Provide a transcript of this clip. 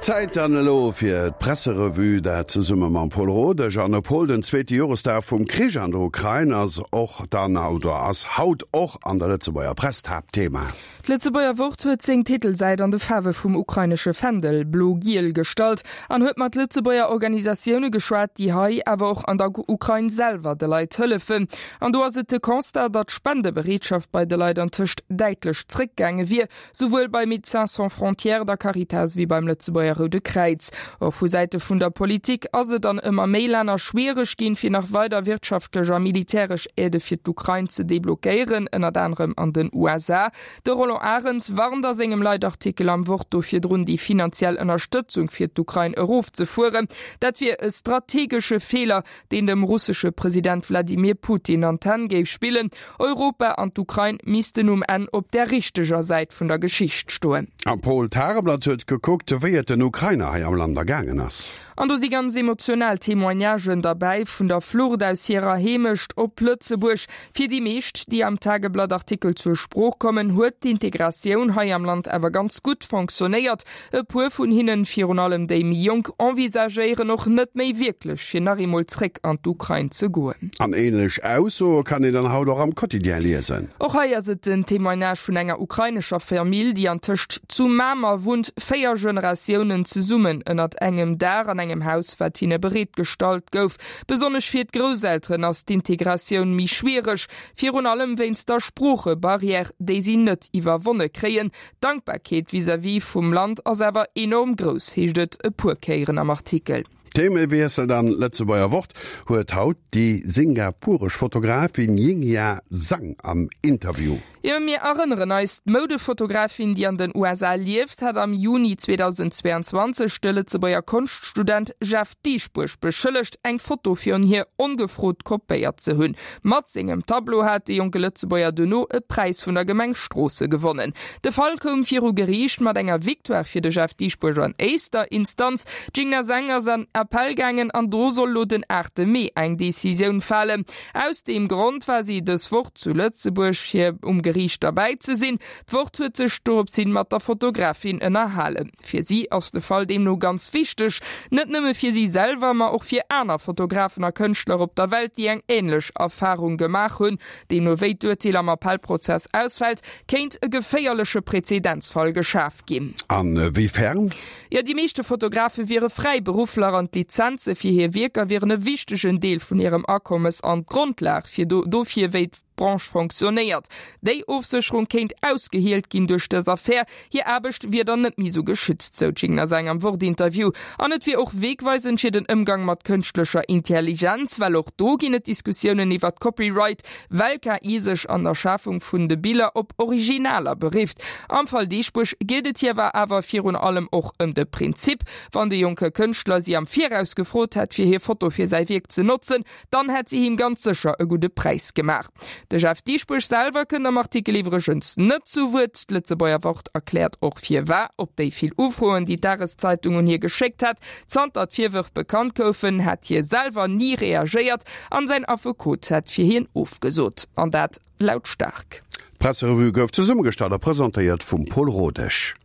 Zäit dann elo fir d'Presserevue, dat zesumme mam Paul Rodesch. An e Paul, den zweete Joresdag vum Krich an der Ukrain ass och dann, oder ass haut och an der Lëtzebuerger Press d'Haaptthema. D'Lëtzebuerger Wort huet seng Titelsäit an de Faarwe vum ukrainesche Fändel, blo-giel, gestallt an huet mat Lëtzebuerger Organisatioune geschwat, déi hei, awer och an der Ukrain selwer de Leit hëllefen. An do ass et de Constat, datt d'Spendebereetschaft bei de Leit antëscht däitlech zréckgaange wier. Souwuel bei Médecins Sans Frontières, der Caritas wéi beim Lëtzebuerger Roude Kräiz. Och vu Säite vun der Politik ass et an ëmmer méi Länner schwiereg ginn, fir nach weider wirtschaftlech a militäresch Aidë fir d'Ukrain ze deblockéieren, ënnert anerem an den USA. De Roland Arens warnt a sengem Leitartikel am Wort do virdrun, déi finanziell Ënnerstëtzung fir d'Ukrain erofzefueren. Dat wier e strategesche Feeler, deen dem russesche President Wladimir Putin an d'Hänn géif spillen. Europa an d'Ukrain missten um Enn op där richteger Säit vun der Geschicht stoen. A Paul Tageblatt huet gekuckt, wéi et den Ukrainer hei am Land ergaangen ass. An do si ganz emotional Témoignagen derbäi, vun der Flucht aus hirer Heemecht op Lëtzebuerg. Fir déi meescht, déi am Tageblatt-Artikel zur Sprooch kommen, huet d'Integratioun hei am Land awer ganz gutt fonctionnéiert. E puer vun hinnen, virun allem déi méi jonk, envisagéieren och net méi wierklech, fir nach eemol zréck an d'Ukrain ze goen. An ähnlech Aussoe kann een dann haut och am Quotidien liesen. Och hei ass et den Témoignage vun enger ukrainescher Famill, déi antëscht zu Mamer wunnt, 4 Generatiounen zesummen ënnert engem Daach an engem Haus, wat hinne bereet gestallt gouf. Besonnesch fir d'Grousselteren ass d'Integratioun méi schwiereg, virun allem wéinst der Sproochebarrière, déi si net iwwerwonne kréien. D'Dankbarkeet vis-à-vis vum Land ass awer enorm grouss, heescht et e puer Kéieren am Artikel. Themewiessel dann, D'Lëtzebuerger Wort huet haut déi singapuresch Fotografin Yingyia Zhang am Interview. Jo, mir erënneren eis, D'Moudefotografin, déi an den USA lieft, hat am Juni 2022 de Lëtzebuerger Konschtstudent Jeff Dieschbourg beschëllegt, eng Foto virun hir ongefrot kopéiert ze hunn. Mat sengem Tableau hat de jonke Lëtzebuerger duerno e Präis vun der Gemeng Stroosse gewonnen. De Fall koum viru Geriicht mat enger Victoire fir de Jeff Dieschbourg an éischter Instanz. D'Jingna Zhang ass an Appell gaangen an do soll lo den 8 Mee eng Decisioun falen. Aus deem Grond war si dës Woch zu Lëtzebuerg fir um Geriicht derbäi ze sinn. D'Wort huet sech doropshin mat der Fotografin ënnerhalen. Fir si ass de Fall deemno ganz wichteg, net nëmme fir si selwer, ma och fir aner Fotografen a Kënschtler op der Welt, déi eng änlech Erfarung gemaach hunn. Deemno wéi d'Urteel am Appellprozess ausfält, kéint e geféierleche Prezedenzfall geschaf ginn. A wéi fern? Jo, déi meeschte Fotografe wiere Fräiberuffler an d'Lizenze fir hir Wierker wieren e wichtegen Deel vun hirem Akommes an d'Grondlag fir dofir, wéi Branche fonctionnéiert. Déi Ofsécherung kéint ausgehielt ginn duerch dës Affär. Hir Aarbecht wier dann net méi sou geschützt, sou d'Jingna Zhang am Wort-Interview. An et wier och wegweisend fir den Ëmgang mat kënschtlecher Intelligenz, well och do ginn et Diskussiounen iwwert Copyright, well KI sech an der Schafung vun de Biller op Originaler berifft. Am Fall Dieschbourg geet et hir awer virun allem och ëm de Prinzip, Wann de jonke Kënschtler si am Viraus gefrot hätt, fir hir Foto fir säi Wierk ze notzen, Dann hätt si him ganz sécher e gudde Präis gemaach. De Jeff Dieschbourg selwer kënnt am Artikel iwwregens net zu Wuert. D'Lëtzebuerger Wort erkläert och firwar. Op déi vill Ufroen, déi d'Dageszeitung un hie geschéckt hat, zanter d'Virwërf bekannt goufen, hätt hie selwer ni reagéiert an säin Affekot hätt fir hien ofgesot. An dat lautstaark. D'Presserevue gouf zesummegestallt a presentéiert vum Paul Rodesch.